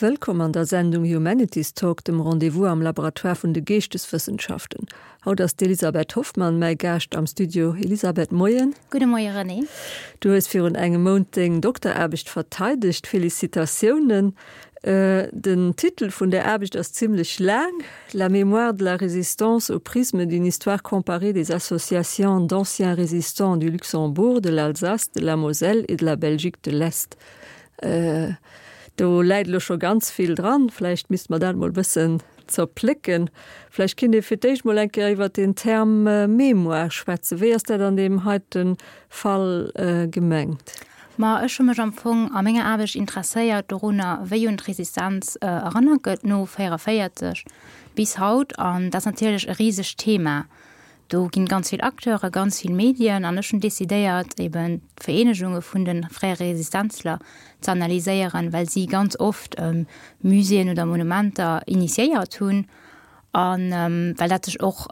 Wëllkomm an der Sendung Humanities Talk, dem Rendez-vous am Laboratoire vun de Geeschteswëssenschaften. Haut ass d'Elisabeth Hoffmann mäi Gaascht am Studio. Elisabeth, Moien. Gudde Moie René. Du hues virun engem Mount deng Dokteraarbecht verteidegt. Félicitatiounen. Den Titel vun där Aarbecht ass zimlech laang, La mémoire de la résistance au prisme d'une histoire comparée des associations d'anciens résistants du Luxembourg, de l'Alsace, de la Moselle et de la Belgique de l'Est. Do läit elo scho ganz vill dran. Vläicht misste mer dat emol e bëssen zerplécken. Vläicht kinnt ee fir d'éischt mol eng Kéier iwwert den Term Mémoire schwätzen. Wéi ass dat an deem heite Fall gemengt? Ma ech hu mech am Fong a menger Aarbecht interesséiert dorunner, wéi un d'Resistenz erënnert gëtt no 44 bis haut. An dat ass natierlech e risegt Thema. Do ginn ganz vill Acteure, ganz vill Medien an ech hunn decidéiert, eben d'Vereenegunge vun de fréiere Resistenzler ze analyséieren, well si ganz oft Muséeën oder Monumenter initiéiert hunn a well dat sech och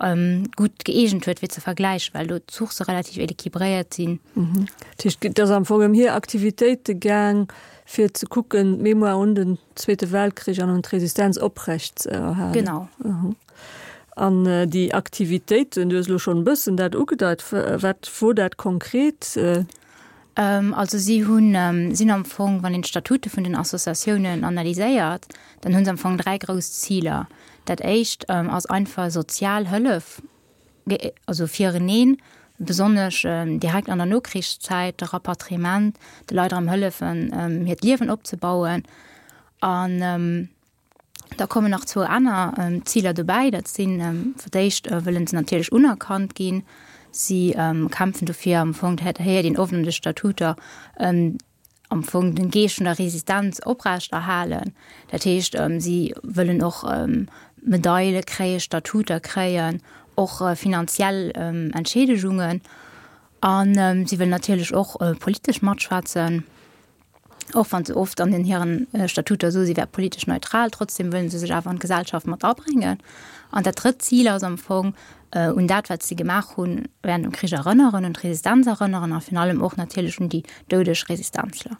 gutt gëeegent huet fir ze vergläichen, well do d'Sourcë relativ équilibréiert sinn. Dat heescht, et ass am Fong ëm hir Aktivitéite gaang, fir ze kucken, d'Mémoire un den Zweete Weltkrich an un d'Resistenz oprecht ze erhalen. Genau. An déi Aktivitéiten, du hues elo schonn e bëssen dat ugedeit, wat wor dat konkret? Also si hunn, sinn am Fong, wann een d'Statute vun den Associatiounen analyséiert, dann hu se am Fong 3 grouss Ziler. Dat éischt ass einfach sozial Hëllef, also fireneen, besonnesch direkt an der Nokrichszäit, de Rapatriement, de Leit erëm hëllefen, hiert Liewen opzebauen. An Da kommen nach zwou aner Ziler dobäi. Dat sinn, fir d'éischt wëllen se natierlech unerkannt ginn. Si kämpfen dofir am Fong, dat héiert een oft an de Statuter, am Fong den Geescht vun der Resistenz oprechterhalen. Dat heescht, si wëllen och Medaile kréien, Statuter kréien, och finanziell Entscheedegungen. A si wëllen natierlech och politesch matschwätzen. Och wann se oft an den hiren Statuter soe si wär politesch neutral, trotzdem wëllen se sech awer an d'Gesellschaft mat abréngen. An dat drëtt Zil ass am Fong, un dat wat si gemaach hunn während dem Krich erënneren, un d'Resistenz erënneren a virun allem och natierlech un déi doudeg Resistenzler.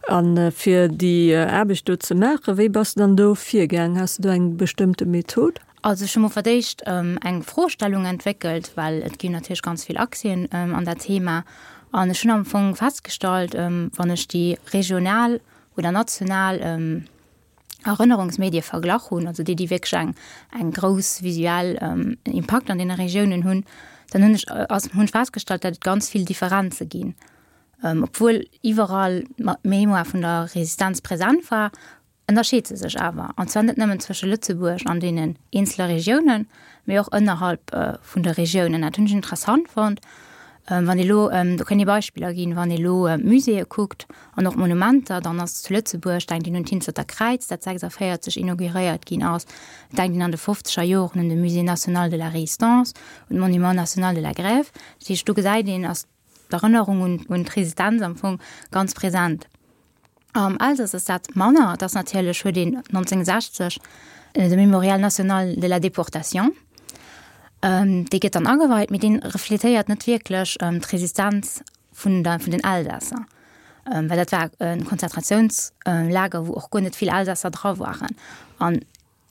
A fir déi Aarbecht do ze maachen, wéi bass de dann do virgaang? Has de do eng bestëmmte Method? Also ech hu mol fir d'éischt eng Froestellung entwéckelt, well et ginn natierlech ganz vill Accèsen an dat Thema. An ech hunn am Fong festgestallt, wann ech déi regional oder national Erënnerungsmedie verglach hunn, also déi, déi wierklech eng, eng grouss visuell Impakt an deene Regiounen hunn, dann hunn ech, ass, hunn ech festgestallt, datt et ganz vill Differenze ginn. Obwuel iwwerall d'Mémoire vun der Resistenz present war, ënnerscheet se sech awer, an zwar net nëmmen zwësche Lëtzebuerg an deenen eenzele Regiounen, mee och ënnerhalb vun de Regiounen. Dat hunn ech interessant fonnt. Wann ee lo, do kënnt ee Beispiller ginn, wann ee lo Muséeë kuckt an och Monumenter, dann ass zu Lëtzebuerg, denkt een un d'Hinzerter Kräiz, dat 46 inauguréiert ginn ass, et denkt een an de fofzeger Joren un de Musée national de la Résistance, un d'Monument national de la Grève. Dat heescht, do gesäit een, ass d'Erënnerung un d'Resistenz am Fong ganz present. Am Elsass ass dat manner. Et ass natierlech, huet een 1960 de Mémorial national de la déportation, dee gëtt dann ageweit, mee dee refletéiert net wierklech d'Resistenz vun der, vun den Elsässer, well dat war e Konzentratiounslager, wou och guer net vill Elsässer dra waren. An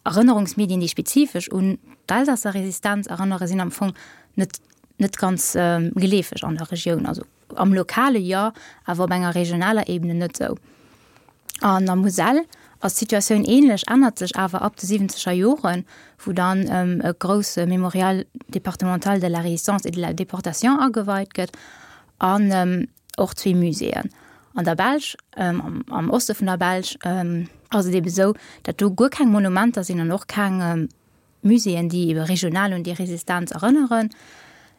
Erënnerungsmedien, déi spezifesch un d'Elsasser Resistenz erënnere, sinn am Fong net net ganz geleefeg an der Regioun. Also am Lokale jo, awer op enger regionaler Ebene net esou. An der Muselle ass d'Situatioun änlech, ännert sech awer ab de siwwenzeger Joren, wou dann e grousse Mémorial départemental de la Résistance et de la Déportation ageweit gëtt an och zwee Muséeën. An der Belsch, am Oste vun der Belsch, ass et ebe sou, datt do guer keng Monumenter sinn an och keng Muséeën, déi ebe regional un déi Resistenz erënneren.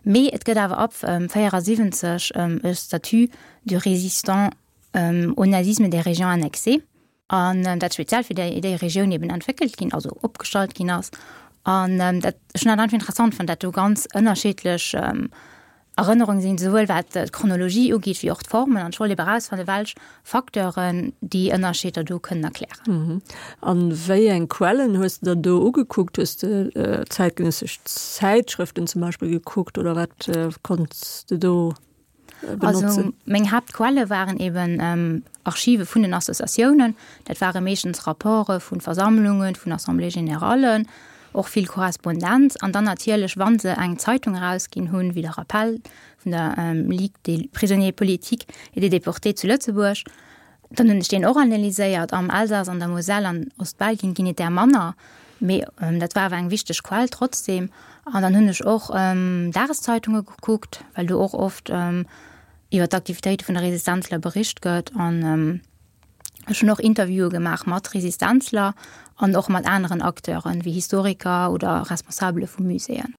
Mee et gëtt awer ab 74 e Statut du résistant au nazisme des régions annexées. An dat speziell fir déi, déi Regioun eben entwéckelt ginn, also opgestallt ginn ass. An dat, ech hunn dat einfach interessant fonnt, dat do ganz ënnerschiddlech Erënnerunge sinn, souwuel wat d'Chronologie ugeet, wéi och d'Formen. An ech wollt eben erausfannen, welch Facteuren déi Ënnerscheeder do kënnen erklären. An wéi eng Quellen hues de der do ugekuckt? Hues de zäitgenëssesch Zäitschrëften zum Beispill gekuckt oder wat konnts de do? Benotzen? Also meng Haaptquelle waren eben Archive vun den Associatiounen. Dat ware meeschtens Rapporte vu Versammlungen, vun Assemblées générallen, och vill Korrespondenz an dann natierlech, wa se eng Zeitung erausginn hunn, wéi de Rappel vun der Ligue des prisonniers politiques et des déportés zu Lëtzebuerg, Dann hunn ech deen och analyséiert. Am Elsass, an der Moselle an Ostbelgien ginn et där manner, mee dat war awer eng wichteg Quell trotzdem. An dann hunn ech och Dageszeitunge gekuckt, well do och oft iwwer d'Aktivitéite vun de Resistenzler bericht gëtt. An ech hunn och Interviewe gemaach mat Resistenzler an och mat aneren Acteuren, wéi Historiker oder Responsabele vu Muséeën.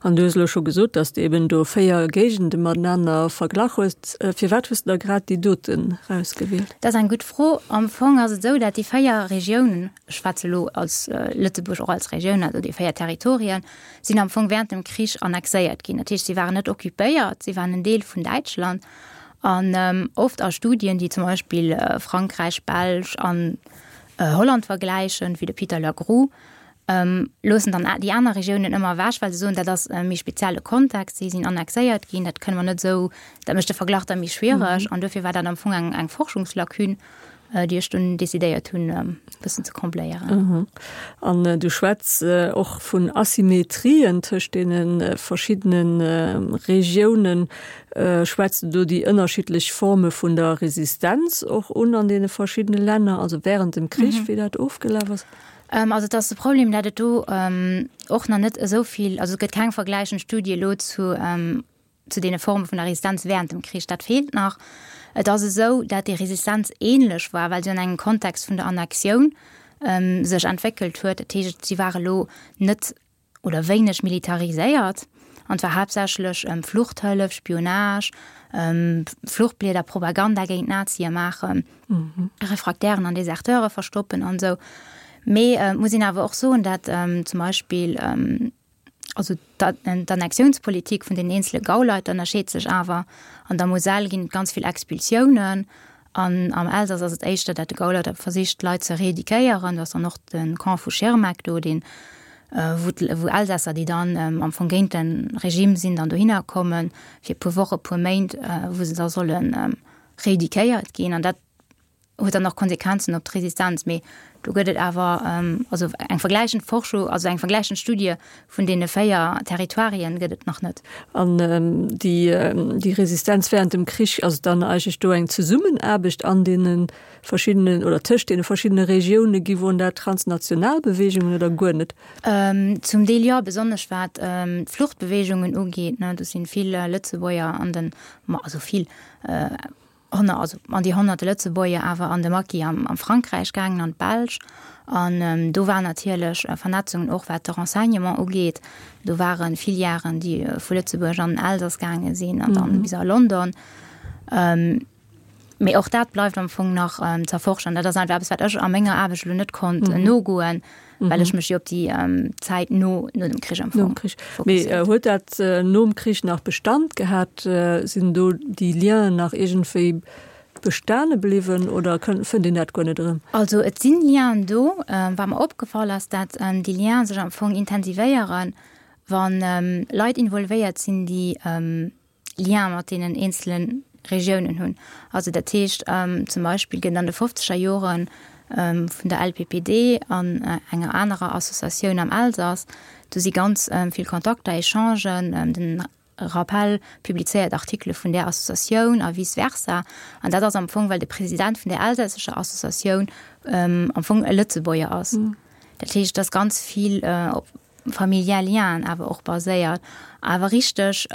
An du hues elo scho gesot, dass de eben do 4 Géigende matenaner verglach hues. Firwat hues de da grad déi doten rausgewielt? Dat ass eng gutt Fro. Am Fong ass et esou, dat déi 4 Regiounen, ech schwätze elo als Lëtzebuerg och als Regioun, also déi 4 Territorien, sinn am Fong während dem Krich annexéiert ginn. Dat heescht, si waren net occupéiert, si waren en Deel vun Däitschland. An oft a Studien, déi zum Beispill Frankräich, Belsch an Holland vergläichen, wéi de Peter Lagrou, loossen dann déi aner Regiounen ëmmer ewech, well se soen, dat ass e méi spezielle Kontext, si sinn annexéiert ginn, dat kënne mer net esou, dat mécht de Verglach da méi schwiereg. An dofir war dat am Fong eng, eng Forschungslacune, déi ech dunn decidéiert hunn, e bëssen ze combléieren. An du schwätz och vun Asymmetrien tëscht deene verschiddene Regiounen. Schwätz de do déi ënnerschiddlech Forme vun der Resistenz och un an deene verschiddene Länner, also wärend dem Krich, wéi dat ofgelaf ass? Also et ass de Problem, dat et do och nach net esou vill, also et gëtt keng vergläichend Studie elo zu zu deene Forme vun der Resistenz während dem Krich, dat feelt nach. Et ass esou, dat déi Resistenz ähnlech war, well se an engem Kontext vun der Annexioun sech entwéckelt huet. Dat heescht, si war elo net oder wéineg militariséiert an et war haaptsächlech Fluchthëllef, Spionage, Fluchtblieder, Propaganda géint d'Nazie maachen, Refraktären an Deserteure verstoppen an esou. Mee et muss een awer och soen, dat zum Beispill also d'Annexiounspolitik vun den eenzele Gauleiter ënnerscheet sech awer. An der Moselle ginn et ganz vill Expulsiounen An am Elsass ass et éischter, dat de Gauleiter versicht, d'Leit ze reeduquéieren. Do ass dann och de Camp vu Schirmeck do, deen, wou wou Elsässer, déi dann am Fong géint de Regime sinn, dann dohinner kommen, fir e puer Woche, e puer Méint, wou se da solle reeduquéiert ginn. An dat huet dann och Konsequenzen op d'Resistenz. Mee do gëtt et awer, also eng vergläichend Forschung, also eng vergläichend Studie Vun deene 4 Territoirien gëtt et nach net. An déi Resistenz während dem Krich, ass et dann eigentlech do eng Zesummenaarbecht an deene verschiddenen oder tëscht deene verschiddene Regioune gi? Woren dat transnational Beweegungen oder guer net? Zum Deel jo, besonnesch wat d'Fluchtbeweegungen ugeet. Do si vill Lëtzebuerger an den, also vill, also an déi honnerte Lëtzebuerger awer an de Maquis am am Frankräich gaangen, an d'Belsch. An do waren natierlech Vernetzungen och wat de Renseignement ugeet. Do ware Filièren, déi vu Lëtzebuerg an den Elsass gaange sinn an dann bis a London. Mee och dat bleift am Fong nach z'erforschen. Dat ass einfach eppes, wat ech a menger Aarbecht elo net konnt nogoen, well ech mech jo op déi Zäit no no dem Krich am Fong Mee huet dat nom Krich nach Bestand gehat? Sinn do déi Lienen nach iergendwéi bestane bliwwen oder fënnt een dat guer net erëm? Also et sinn Lienen do. Wat mer opgefall ass, dat déi Lienen sech am Fong intensivéieren, wa Leit involvéiert sinn, déi Lien mat deenen eenzele Regiounen hunn. Also dat heescht zum Beispill gëtt an de fofzeger Jore vun der LPPD an enger anerer Associatioun am Elsass, do si ganz vill Kontakter, Echangen, den Rappel publizéiert Artikele vun där Associatioun a vice versa. An dat ass am Fong, well de President vun där elsässescher Associatioun am Fong e Lëtzebuerger ass. Dat heescht, et ass ganz vill op familiär Lienen awer och baséiert. Awer richteg,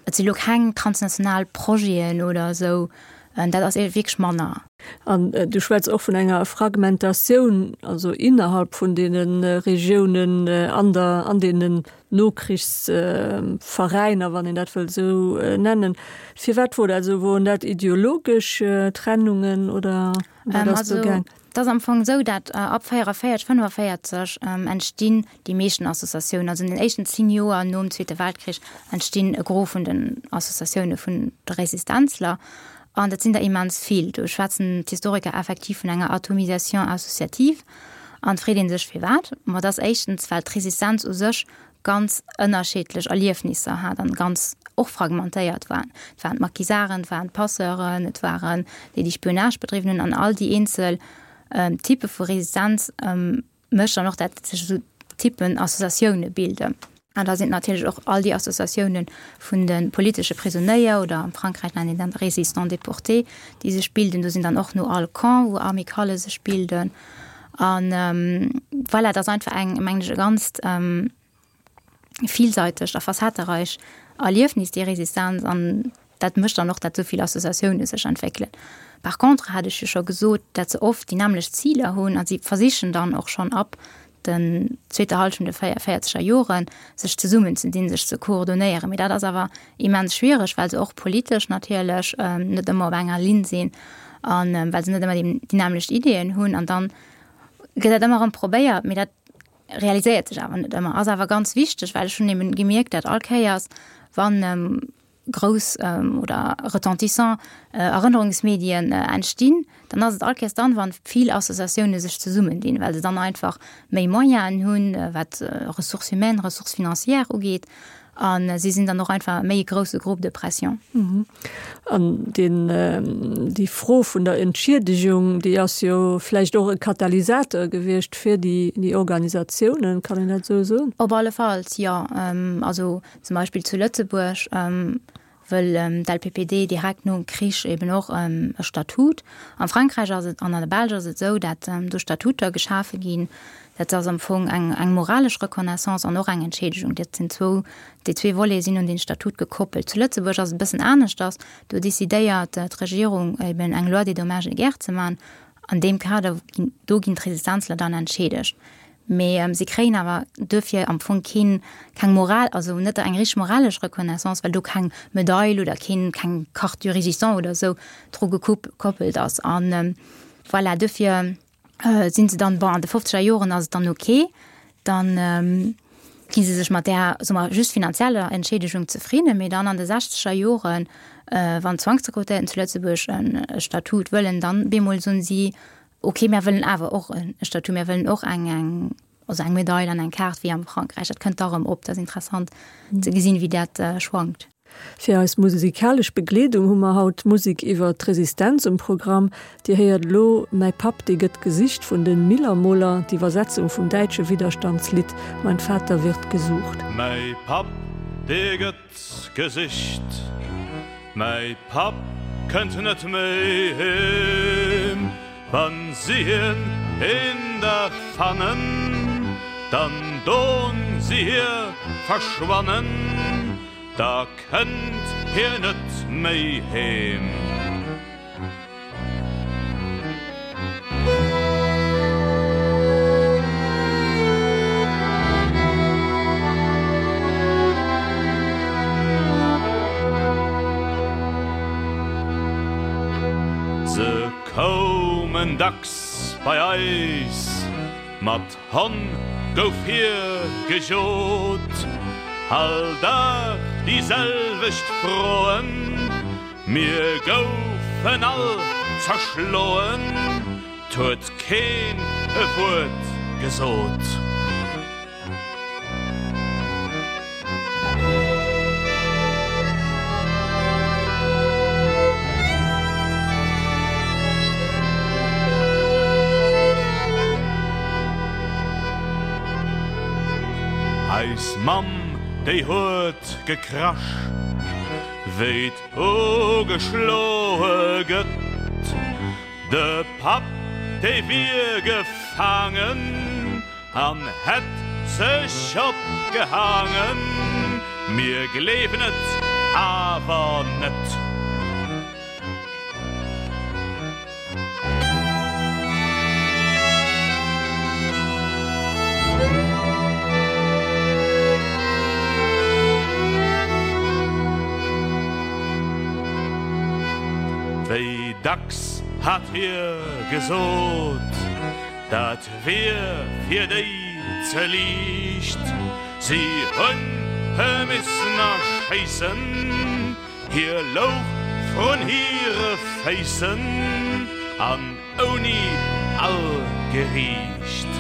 et si lo keng transnational Projeten oder esou, dat ass wierklech manner. An du schwätz och vun enger Fragmentatioun, also innerhalb vun deene Regiounen an der, an deenen Nokrichsveräiner, wann een dat wëllt esou nennen. Firwat wor dat esou? Woren dat ideologesch Trennungen oder wat ass do gaang? Et ass am Fong esou, dat ab 44, 45 entstinn déi meeschten Associatiounen. Also an den éischten 10 Joer nom Zweete Weltkrich entstinn e Gros vun den Associatioune vun de Resistenzler. An dat sinn der immens vill. Do schwätzen d'Historiker effektiv vun enger Atomisation associative. An et freet ee sech firwat. Ma et ass éischtens, well d'Resistenz u sech ganz ënnerschiddlech Erliefnisser hat an ganz. och fragmentéiert waren. Et waren d'Maquisarden, et waren d'Passeuren, et waren déi, déi Spionage bedriwwen hunn an all déi eenzel Typpe vu Resistenz mécht dann och, dat sech esou Typpen Associatioune bilden. An da sinn natierlech och all déi Associatioune vun de politesche Prisonéier oder am Frankräich nennt een dat Résistants déportés, déi sech bilden. Do sinn dann och no all Camp, wou Amicalë sech bilden. An voilà, et ass einfach eng, mengen ech, e ganzt villseitegt a facettereich Erliefnis, déi Resistenz. An dat mécht dann och, datt esou vill Associatioune sech entwéckelen. Par contre hat ech jo scho gesot, datt se oft déi nämmlecht Ziler hunn a si versichen dann och schonn ab den zweeter Hallschent de véierzeger Joren, sech zesummenzedinn, sech ze koordonéieren. Mee dat ass awer immens schwiereg, well se och politesch natierlech net ëmmer op enger Linn sinn a well se net ëmmer déi nämmlecht Ideeën hunn. An dann gëtt dat ëmmer erëm probéiert, mee dat realiséiert sech awer net ëmmer. Ass awer ganz wichteg, well ech hunn eben gemierkt, dat all Kéiers, wann grouss oder retentissant Erënnerungsmedien entstinn, dann ass et all Kéiers dann, wann vill Associatioune sech zesummendinn, well se dann einfach méi Moyenen hunn, wat Ressources humaines, Ressources financières ugeet, a si sinn dann och einfach méi e grousse Groupe de pression. An deen, déi Fro vun der Entschiedegung, déi ass jo vläicht och e Katalysateur gewiescht fir déi, déi Organisatiounen, kann een dat esou soen? Op alle Falls, jo. Also Zum Beispill zu Lëtzebuerg wëll d'LPPD direkt nom Krich eben och e Statut. Am Frankräich ass et an an der Belsch ass et esou, dat do Statuter geschafe ginn. Dat ass am Fong eng eng moralesch Reconnaissance an och eng Entschiedegung. Dat sinn zwou, déi zwee Volete sinn un dee Statut gekoppelt. Zu Lëtzebuerg ass et e bëssen aneschters. Do decidéiert d'Regierung eben eng Loi des dommages et guerres ze maachen. An deem Kader ginn, do ginn d'Resistenzler dann entscheedegt. Mee si kréien awer duerfir am Fong keen, keng Moral, also net eng richteg moralesch Reconnaissance, well do keng Medail oder keen, keng Carte du Résistant oder esou dru gekoppelt ass. An voilà, duerfir si se dann, bon, an de fofzeger Joren ass et dann ok, dann gi se sech mat där, soe mer, just finanzieller Entschiedegung zefridden. Mee dann an de sechzeger Joren, wann d'Zwangsrekrutéierten zu Lëtzebuerg e Statut wëllen, dann bemol soen si, Ok, mär wëllen awer och e Statut, mär wëllen och eng, eng, also eng Medail an eng Kaart wéi am Frankräich. Dat kënnt da rëm op. Dat ass interessant ze gesinn, wéi dat schwankt. Fir eis musikalesch Begleedung hu mer haut Musek iwwer d'Resistenz um Programm. Dir héiert elo Mäi Papp, dee gëtt gesicht vun de Millermoler, d'Iwwersetzung vum däitsche Widderstandslidd Mein Vater wird gesucht. Mäi Papp, dee gëtt Gesicht. Mäi Papp kënnt net méi heem. Wann si hien een Dag fannen, dann don si hie verschwannen, da kënnt hie net méi heem. Se koumen dacks bei eis, mat Honn gouf hie gejot, all Dag déi selwecht Froen. Mir goufen all zerschloen, 't huet keen e Wuert gesot. Eis Mamm, déi huet gekrasch, wéi Ugeschloe gëtt de Papp, dee wier gefaangen an hätt sech opgehaangen. Mir gleewen et awer net. Wéi dacks hat hie gesot, dat wier fir déi ze liicht, si hunn e missen erschéissen. Hie louch vrun hire Féissen an ouni all Geriicht.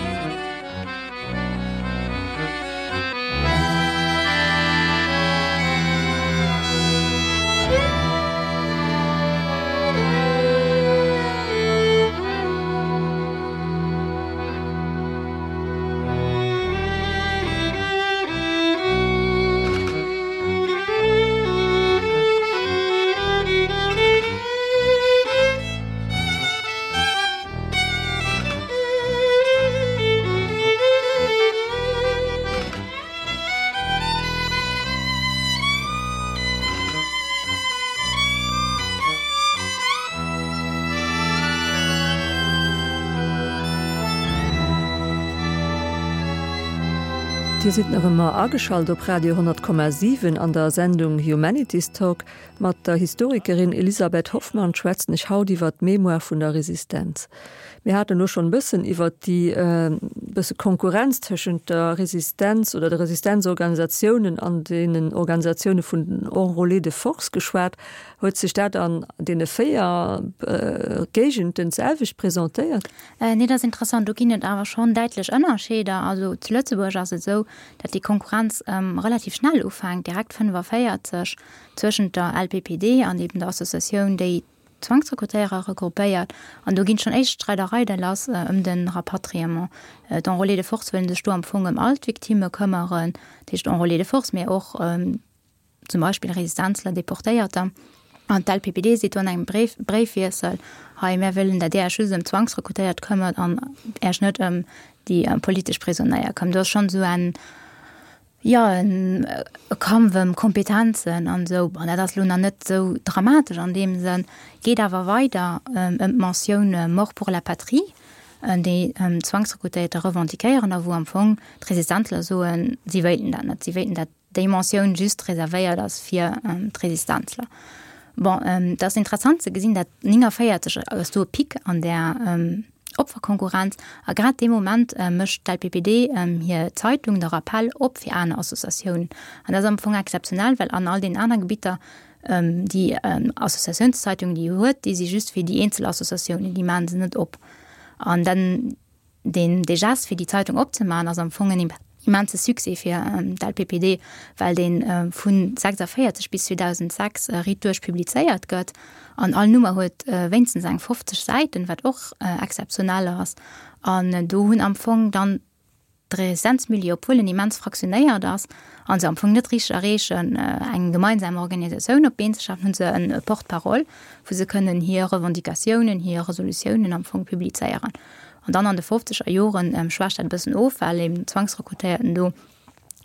Dir sidd nach ëmmer ageschalt op Radio 10,7 an der Sendung Humanities Talk. Mat der Historikerin Elisabeth Hoffmann schwätzen ech haut iwwer d'Mémoire vun der Resistenz. Mir haten elo schonn e bëssen iwwer déi bësse Konkurrenz tëschent der Resistenz oder de Resistenzorganisatiounen an deenen Organisatioune vun den Enrôlés de force geschwat. Huet sech dat an deene 4 Géigenden d'selwecht presentéiert? Nee, dat ass interessant. Do ginn et awer schonn däitlech Ënnerscheeder. Also zu Lëtzebuerg ass et esou, datt déi Konkurrenz relativ schnell ufänkt, direkt 45, zwëschent der LPPD an eben der Associatioun, déi d'Zwangsrekrutéierer regroupéiert. An do ginn schonn éischt Streidereide lass ëm de Rapatriement. D'Enrôlés de force wëllen sech do am Fong ëm all d'Victimme këmmeren, dat heescht Enrôlés de force, mä och zum Beispill Resistenzler, Deportéierter. An d'LPPD seet do an engem Bréif, Bréifwiessel, hei mär wëllen, datt Dir Iech just ëm d'Zwangsrekrutéiert këmmert an Iech net ëm déi politesch Prisonéier këmmert. Do ass schonn esou en, jo, en Kampf ëm Kompetenzen an esou. Bon, dat ass elo nach net esou dramatesch an deem Sënn, geet awer weider ëm d'Mentioun Mort pour la patrie, déi d'Zwangsrekrutéierter revendiquéieren a wou am Fong d'Resistenzler soen, si wéilten dat net, si wéilten dat déi Mentioun just reservéiert ass fir d'Resistenzler. Bon, et ass interessant ze gesinn, dat 49 ass do e Pic an där Opferkonkurrenz a grad dee Moment mécht d'LPPD hir Zeitung, de Rappel, op fir aner Associatiounen. An dat ass am Fong exzeptionell, well an all deenen aner Gebitter déi Associatiounszeitungen, déi huet, déi si just fir déi eenzel Associatiounen, déi maache se net op. An dann Deen dee Gest fir déi Zeitung opzemaachen ass am Fong en immense Succès fir d'LPPD, well dee vu 46 bis 2006 riit duerch publizéiert gëtt an all Nummer huet wéinstens eng 50 Säiten, wat och exzeptionell ass. An do hunn am Fong dann d'Resistenzmilieu, obwuel en immens fraktionéiert ass a se am Fong net richteg erreechen, eng gemeinsam Organisatioun op d'Been ze schafen, hu se e Porte-parole, wou se kënnen hir Revendicatiounen, hir Resolutiounen am Fong publizéieren. An dann an de fofzeger Joren schwächt dat e bëssen of, well eben d'Zwangsrekrutéierten do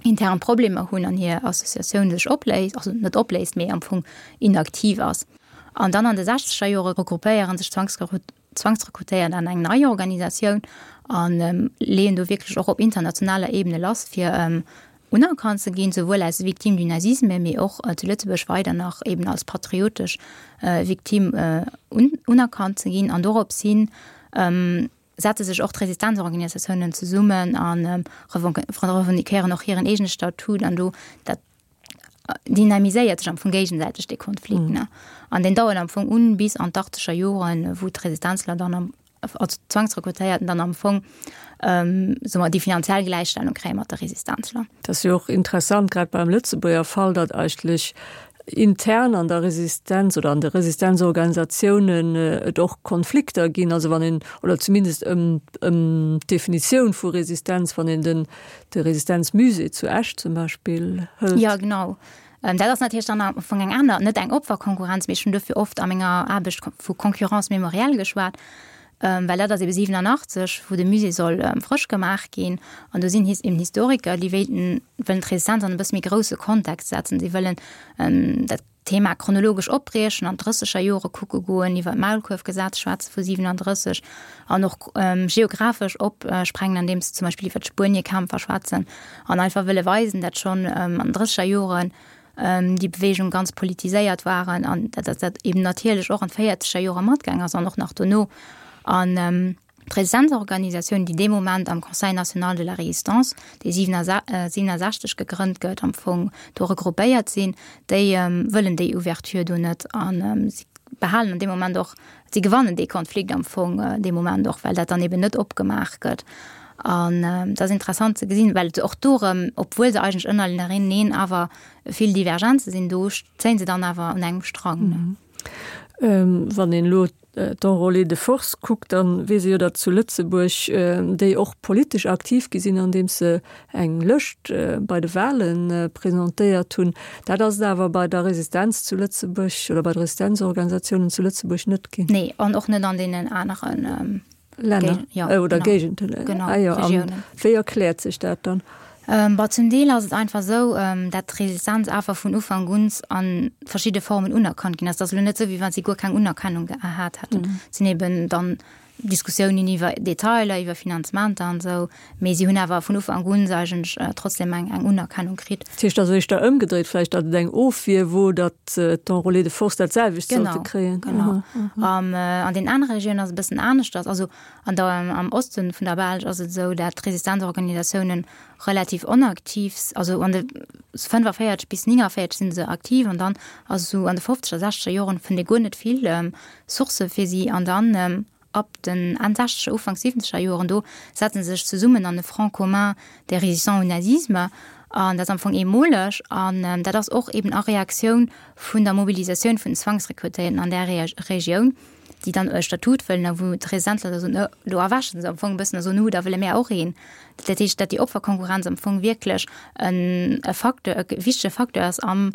intern Problemer hunn an hir Associatioun sech opléist, also net opléist, mee am Fong inaktiv ass. An dann an de sechzeger Jore regroupéiere sech d'Zwangsrekrutéiert an eng nei Organisatioun a leeën do wierklech och op internationaler Ebene lass, fir unerkannt ze ginn, souwuel als Victime du nazisme, mee och zu Lëtzebuerg weider nach eben als patriotesch Victime unerkannt ze ginn. An dorops hin setze sech och d'Resistenzorganisatiounen zesummen a revendiquéieren och hiren eegene Statut. An do dat dynamiséiert sech am Fong géigesäiteg dee Konflikt. An deen dauert am Fong un bis an d'achteger Joren, wou d'Resistenzler dann am als Zwangsrekrutéierten dann am Fong soe mer déi finanziell Gläichstellung kréie mat de Resistenzler. Dat ass jo och interessant, grad beim Lëtzebuerger Fall, datt eigentlech intern an der Resistenz oder an de Resistenzorganisatiounen et och Konflikter ginn, also wann een, oder zumindest ëm ëm d'Definitioun vu Resistenz, wann een den de Resistenzmusée zu Esch zum Beispill hëlt. Jo, genau. Dat ass natierlech dann am Fong eng aner, net eng Opferkonkurrenz, mee ech hunn dofir oft a menger Aarbecht vu Concurrence mémorielle geschwat, well dat ass ebe 87, wou de Musée soll frësch gemaach ginn. An do sinn eben Historiker, déi wéilten, wëllen d'Resistenz an e bësse méi grousse Kontext setzen. Si wëllen dat Thema chronologesch opbriechen, an d'Drësseger Jore kucke goen, iwwer d'Maulkuerfgesetz schwätze vu 37 an och geographesch opsprengen, andeems se zum Beispill iwwer d'Spueniekämpfer schwätzen an einfach wëlle weisen, dat schonn an den drësseger Joren déi Beweegung ganz politiséiert waren an dat dat eben natierlech och an d'véierzeger Jore matgaang ass an och nach dono. An d'Resistenzorganisatioun, déi dee Moment am Conseil national de la Résistance, dee 67 gegrënnt gëtt, am Fong do regroupéiert sinn, déi wëllen déi Ouverture do net a si behalen an deem Moment och, si gewannen dee Konflikt am Fong dee Moment och, well dat dann eben net opgemaach gëtt. An et ass interessant ze gesinn, well et och do erëm, obwuel se eigentlech ënnerleneen awer vill Divergenze sinn, do zéien se dann awer un engem Strang. Wann een elo d'Enrôlés de force kuckt, da weess ee jo, datt zu Lëtzebuerg déi och politesch aktiv gi sinn, andeems se eng Lëscht bei de Wahle presentéiert hunn. Dat ass et awer bei der Resistenz zu Lëtzebuerg oder bei de Resistenzorganisatiounen zu Lëtzebuerg net ginn. Nee, an och net an deenen aneren Länner ja, äh, oder Géigenden. Genau, ah, ja, wéi erkläert sech dat dann? Ähm, bah, zum Deel ass et einfach esou, ähm, dat d'Resistenz einfach vun Ufank un an verschidde Formen unerkannt ginn ass. Dat ass elo net esou, wéi wann si guer keng Unerkennung gehat hätten. Mm. Sinn eben dann. Diskussiounen iwwer Detailer, iwwer Finanzementer an esou, mee si hunn awer vun Ufank un eigentlech trotzdem eng eng Unerkennung kritt. Dat heescht also éischter ëmgedréit vläicht, datt et eng Ofwier wor, datt d'Enrôlés de force dat selwecht sollte kréien. Genau, genau. An den anere Regiounen ass et e bëssen aneschters. Also an der, am Oste vun der Belsch ass et esou, dat d'Resistenzorganisatiounen relativ onaktiv, also an de 45 bis 49 sinn se aktiv an dann ass esou an de fofzeger, sechzeger Joren fënnt ee guer net vill Sourcë fir si an dann ab den Enn sechzeger, Ufank siwwenzeger Joren do setze se sech zesummen an e Front commun des résistants au nazisme an dat ass am Fong eemoleg an dat ass och eben a Reaktioun vun der Mobilisatioun vun den Zwangsrekrutéierten an där Regioun. déi dann e Statut wëllen a wou d'Resistenzler da soen, do erwächen se am Fong e bëssen a soen, hu da wëlle mär och een. Dat heescht, datt déi Opferkonkurrenz am Fong wierklech en e Facteur, e wichtege Facteur ass am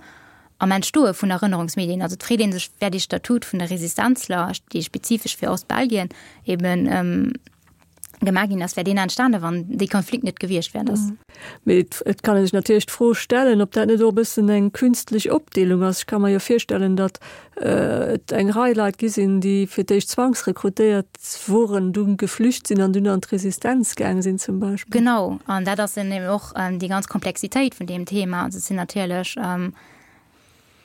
am Entstoe vun Erënnerungsmedien. Also et freet ee sech, wär dee Statut vun de Resistenzler, dee spezifesch fir Ostbelgien eben gemaach ginn ass, wär deen entstane wann dee Konflikt net gewiescht wär. Dass. Mee et kann ee sech natierlech d'Fro stellen, ob dat net och e bëssen eng künstlech Opdeelung ass. Ech ka mer jo virstellen, datt et eng Rei Leit gi sinn, déi fir d'éischt zwangsrekrutéiert woren, dunn geflücht sinn an dunn an d'Resistenz gaang sinn zum Beispill. Genau, an dat ass eben och déi ganz Komplexitéit vun deem Thema. Also et sinn natierlech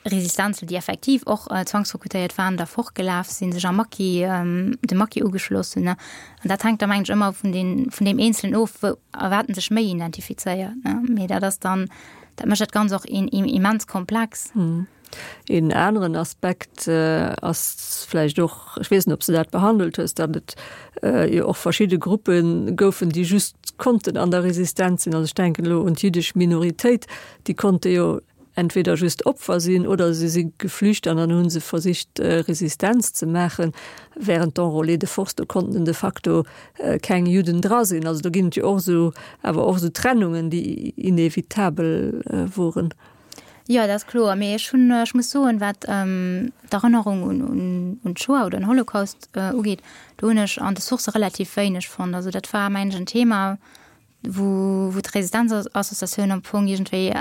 Resistenzen, déi effektiv och zwangsrekrutéiert waren, da fortgelaf sinn, sech am Maquis, dem Maquis ugeschloss hunn. An dat hänkt da mengen ech ëmmer vun den, vun deem Eenzelen of, wou a wat en sech méi identifizéiert, ne. Mee dat ass dann, dat mécht dat Ganzt och immens komplex. Een aneren Aspekt ass vläicht och, ech weess net, ob s de dat behandelt hues, datt et jo och verschidde Gruppe goufen, déi just konnten an der Resistenz sinn. Also ech denken elo un d'jiddesch Minoritéit, déi konnte jo entweder just Opfer sinn oder se si geflücht an dann hu se versicht Resistenz ze maachen. Während d'Enrôlés de force, do konnten de facto keng Judden dra sinn. Also do ginn et jo och esou, awer och esou Trennungen, déi inevitabel woren. Jo, dat ass kloer. Mee ech hunn, ech muss soen, wat d'Erënnerung un, un, un d'Shoah oder den Holocaust ugeet, do hunn ech an de Sourcë relativ wéineg fonnt. Also dat war, mengen ech, en Thema, wou wou d'Resistenzassociatioun am Fong iergendwéi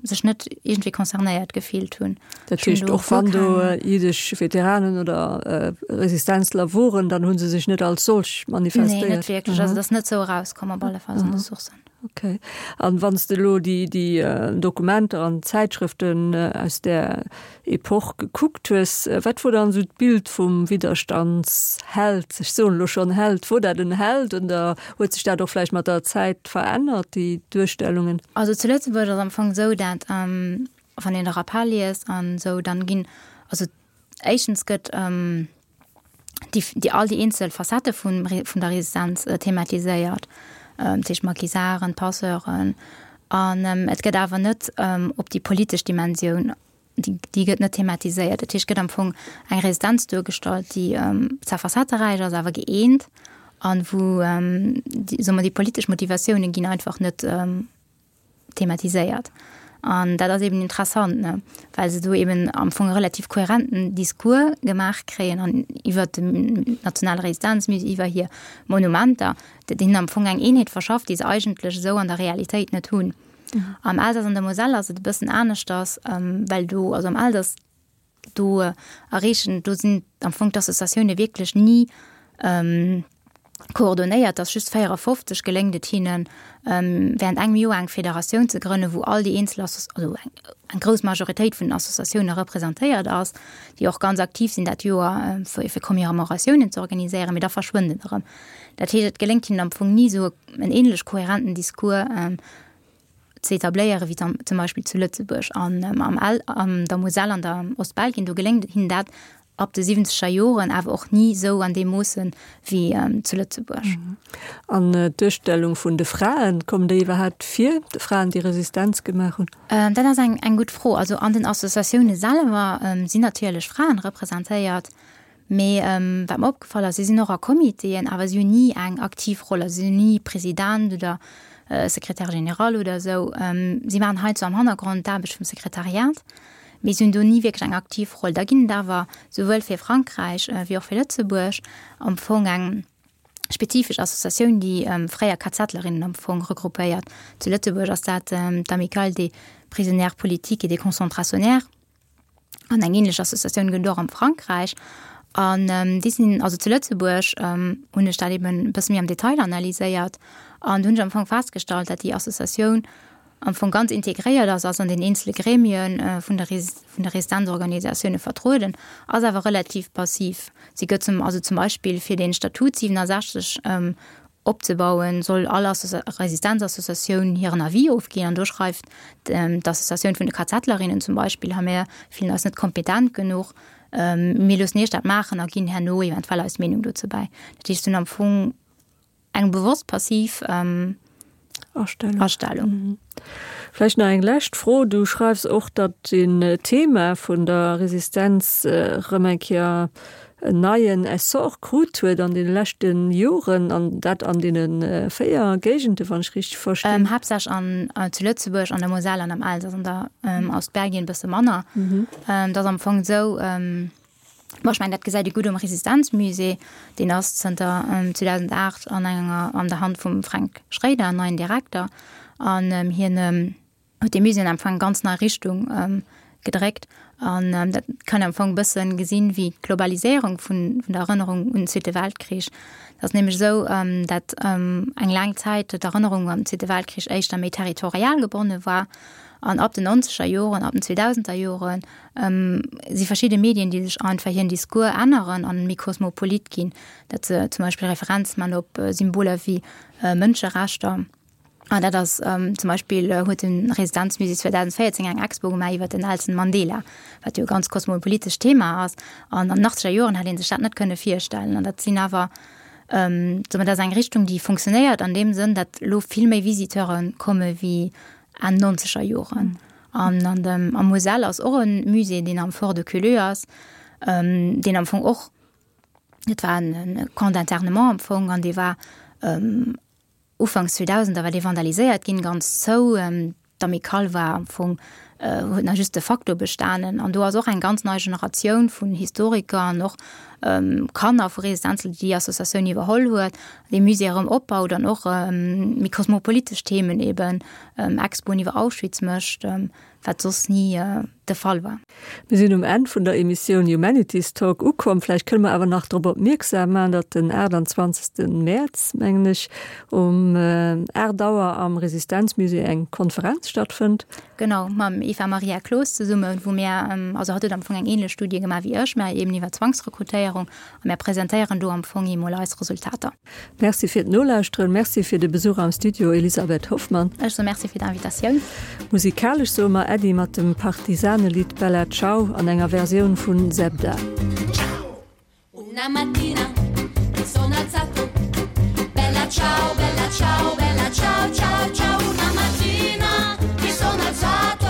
sech net iergendwéi concernéiert gefillt hunn. Dat heescht, och wann do jiddesch Veteranen oder Resistenzler woren, dann hu se sech net als solch manifestéiert? Nee, net wierklech. Also dat ass net esou erauskomm op alle Fall an de Sourcen. Okay. An wann s de elo déi déi Dokumenter an Zäitschrëften aus där Epoch gekuckt hues, wat wor dann esou d'Bild vum Widderstandsheld, ech soen elo schonn Held, wor dat en Held oder huet sech dat och vläicht mat der Zäit verännert, déi Duerstellungen? Also zu Lëtzebuerg ass am Fong esou, dat wann een de Rappel liest an esou, dann ginn, also éischtens gëtt déi, déi all déi eenzel Facettë vun vun der Resistenz thematiséiert, dat heescht d'Maquisarden, d'Passeuren an et gëtt awer net op déi politesch Dimensioun déi, déi gëtt net thematiséiert. Dat heescht, et gëtt am Fong eng Resistenz duergestallt, déi zwar facetteräich ass, awer gëeent an wou, déi, soe mer, déi politesch Motivatioune ginn einfach net thematiséiert. An dat ass eben interessant, ne, well se do eben am Fong e relativ kohärenten Discours gemaach kréien an iwwert den nationale Resistenzmusée, iwwer hir Monumenter, dat hinnen am Fong eng Eenheet verschafft, déi se eigentlech esou an der Realitéit net hunn. Am Elsass an der Moselle ass et e bëssen aneschters, well do, also am Elsass, do erreechen, do sinn am Fong d'Associatioune wierklech ni koordonéiert, dass just 54 geléngt et hinnen, während engem Joer eng Federatioun ze grënnen, wou all déi eenzel Asso, also eng, eng grouss Majoritéit vun den Associatioune representéiert ass, déi och ganz aktiv sinn dat Joer, fir, fir Commemoratiounen ze organiséieren, mee da verschwënnt et erëm. Dat heescht, et geléngt hinnen am Fong ni esou en ähnlech kohärenten Discours ze etabléieren, wéi zum Beispill zu Lëtzebuerg an am Al an der Moselle an der Ostbelgien. Do geléngt hinnen dat ab de siwwenzeger Joren, awer och ni esou an deem Moosse wéi zu Lëtzebuerg. An d'Duerstellung vun de Fraen, kommen déi iwwerhaapt vir, de Fraen, déi Resistenz gemaach hunn? Dat ass eng eng gutt Fro. Also an den Associatioune selwer sinn natierlech Fraen representéiert. Mee wat mer opgefall ass, si sinn och a Comitéen, awer si hunn ni eng aktiv Roll. Also si sinn ni President oder Secrétaire général oder esou. Si maachen heiansdo am Hannergrond d'Aarbecht vum Sekretariat, mee si hunn do ni wierklech eng aktiv Roll. Da ginn et awer souwuel fir Frankräich wéi och fir Lëtzebuerg am Fong eng spezifesch Associatioun, déi fréier KZlerinnen am Fong regroupéiert. Zu Lëtzebuerg ass dat d'Amicale des prisonnières politiques et des concentrationnaires. An eng ähnlech Associatioun gëtt et och am Frankräich. An déi sinn, also zu Lëtzebuerg hunn ech dat eben e bësse méi am Detail analyséiert an do hunn ech am Fong festgestallt, dat déi Associatioun am Fong ganz integréiert ass, ass an den eenzele Gremien vun der vun de Resistenzorganisatioune vertrueden, ass awer relativ passiv. Si gëtt zum, also zum Beispill fir den Statut 67 opzebauen, soll all Resistenzassociatioun hiren Avis ofginn an do schreift d'Associatioun vun de KZlerinnen zum Beispill, ha mir fillen eis net kompetent genuch, mir loossen iech dat maachen a ginn herno eventuell eis Meenung dozou bäi. Dat heescht, se hunn am Fong eng bewosst passiv Astellung. Astellung. Vläicht nach eng lescht Fro. Du schreifs och, datt den Thema vun der Resistenz erëm eng Kéier en neien Essor krut huet an deene leschte Joren, an dat an deene 4 Géigende, wann ech richteg verstinn. Haaptsächlech an zu Lëtzebuerg, an der Moselle an am Elsass, an der Ostbelgien e bësse manner. Et ass am Fong esou, Bon, ech mengen, dat gesäit ee gutt um Resistenzmusée. Deen ass zënter 2008 an enger, an der Hand vum Fränk Schréider, en neien Direkter. An hien huet dee Musée am Fong eng ganz nei Richtung gedréckt. An dat kann een am Fong e bësse gesinn, wéi d'Globaliséierung vun der Erënnerung un den Zweete Weltkrich. Et ass nämlech esou, datt eng laang Zäit d'Erënnerung un den Zweete Weltkrich éischter méi territorial gebonne war. An ab den nonzeger Joren, ab den zweedausender Joren si verschidde Medien, déi sech einfach hiren Discours änneren an méi kosmopolit ginn, dat se zum Beispill Referenz man op Symboler wéi Mënscherechter. An dat ass zum Beispill huet de Residenzmusée 2014 eng Expo gemaach iwwer den Nelson Mandela, wat jo e ganz kosmopolitescht Thema ass. An an den achtzeger Joren hätt ee sech dat net kënne virstellen. An dat sinn awer, soe mer, dat ass eng Richtung, déi funktionéiert an deem Sënn, datt elo vill méi Visiteure komme wéi Enn nonzeger Joren. An an dem am Moselle ass och e Musée, deen am Fort de Culleux ass, deen am Fong och, dat war en Camp d'internement am Fong, an dee war ufanks 2000er war dee vandaliséiert ginn, ganz zou. D'Amicale war am Fong, huet nach just de facto bestanen. An do ass och eng ganz nei Generatioun vun Historiker an och Kanner vu Resistenzen, déi déi Associatioun iwwerholl huet, dee Musée erëm opbaut an och méi kosmopolitesch Themen eben, Expoen iwwer Auschwitz mécht, wat soss ni de Fall war. Mir sinn um Enn vun der Emissioun Humanities Talk ukomm. Vläicht kënne mer awer nach drop opmierksam maachen, datt den 28. Mäerz, mengen ech, um 8 Auer am Resistenzmusée eng Konferenz stattfënnt. Genau, mam Eva Maria Cloos zesummen, wou mir, also hatt huet am Fong eng ähnlech Studie gemaach wéi ech, mä eben iwwer Zwangsrekrutéierung, a mir presentéieren do am Fong emol eis Resultater. Merci fir d'Nolauschteren, Merci fir de Besuch am Studio, Elisabeth Hoffmann. Ech soe Merci fir d'Invitatioun. Musikalesch soe mer Äddi mat dem Partisanelidd Bella Ciao an enger Versioun vun Zebda. Una mattina mi sono alzato Bella ciao, bella ciao, bella ciao, ciao, ciao Una mattina mi sono alzato.